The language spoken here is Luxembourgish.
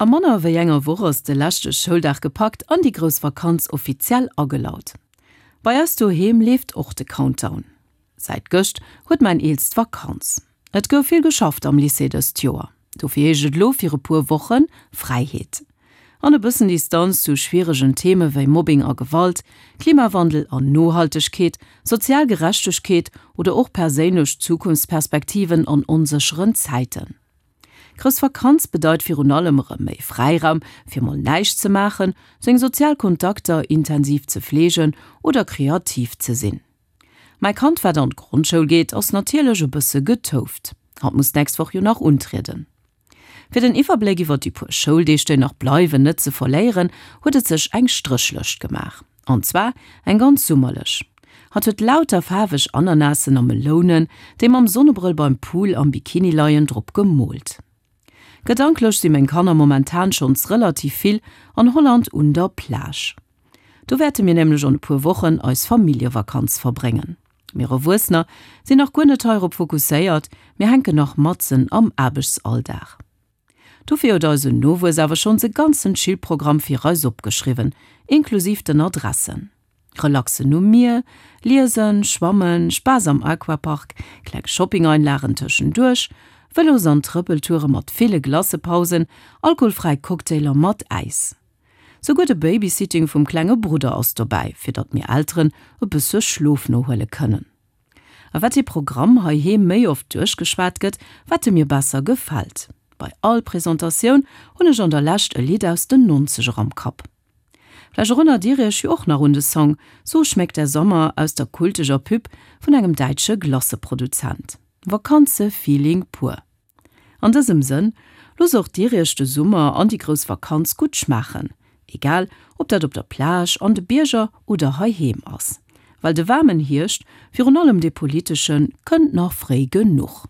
A manner wéi enger Woch ass de leschte Schouldag gepackt an déi grouss Vakanz offiziell agelaut. Bei eis doheem leeft och de Countdown. Säit gëscht huet mäin Eelst Vakanz. Et gouf vill geschafft am Lycée dëst Joer, dofir heescht et elo fir e puer Woche Fräiheet an e bëssen Distanz zu schwieregen Theme wéi Mobbing a Gewalt, Klimawandel an Nohaltegkeet, sozial Gerechtegkeet oder och perséinlech Zukunftsperspektiven an onsécheren Zäiten. Grouss Vakanz bedeit virun allem erëm méi Fräiraum fir mol näischt ze maachen, seng sozial Kontakter intensiv ze fleegen oder kreativ ze sinn. Mäi Kand wat an d'Grondschoul geet ass natierlech e bësse getouft, hatt muss d'nächst Woch jo nach untrieden. Fir den Iwwerbléck iwwer déi puer Schouldeeg déi nach bleiwen net ze verléieren, huet et sech eng Stréchlëscht gemaach. An zwar eng ganz summerlech. Hatt huet lauter faarweg Ananassen a Melounen, déi mam Sonnebrëll beim Pool am Bikini leien, drop gemoolt. Gedanklech si meng Kanner momentan schonns relativ vill an Holland un der Plage. Do wäerte mir nämlech an e puer Wochen eis Familljevakanz verbréngen. Mir Erwuessener sinn nach guer net heirop fokusséiert, mir hänken nach matzen am Aarbechtsalldag. Dofir huet eisen Nowuess awer schonns e ganzen Chill-Programm fir eis opgeschriwwen, inklusiv den Adressen. Relaxen um Mier, liesen, schwammen, Spaass am Aquapark, kleng Shopping-Einlagen tëschenduerch, Vëlos an Trëppeltoure mat ville Glacepausen, alkoholfräi Cocktailer mat Äis. Souguer de Babysitting vum klenge Brudder ass dobäi, fir datt mir Elteren e bësse Schlof nohuele kënnen. A wat dee Programm heiheem méi oft duerchgeschwat gëtt, wat e mir besser gefält. Bei all Presentatioun hunn ech an der Lescht e Lidd aus den Nonzeger am Kapp. Vläicht erënnert Dir Iech jo och nach un de Song So schmeckt der Sommer aus der kulteger Pub vun engem däitsche Glacëproduzent. Vakanze-Feeling pur. An dësem Sënn, loosst och dir iech de Summer an déi grouss Vakanz gutt schmaachen, egal ob dat op der Plage, an de Bierger oder heiheem ass. Well de waarmen Hierscht, virun allem dee politeschen, kënnt nach fréi genuch.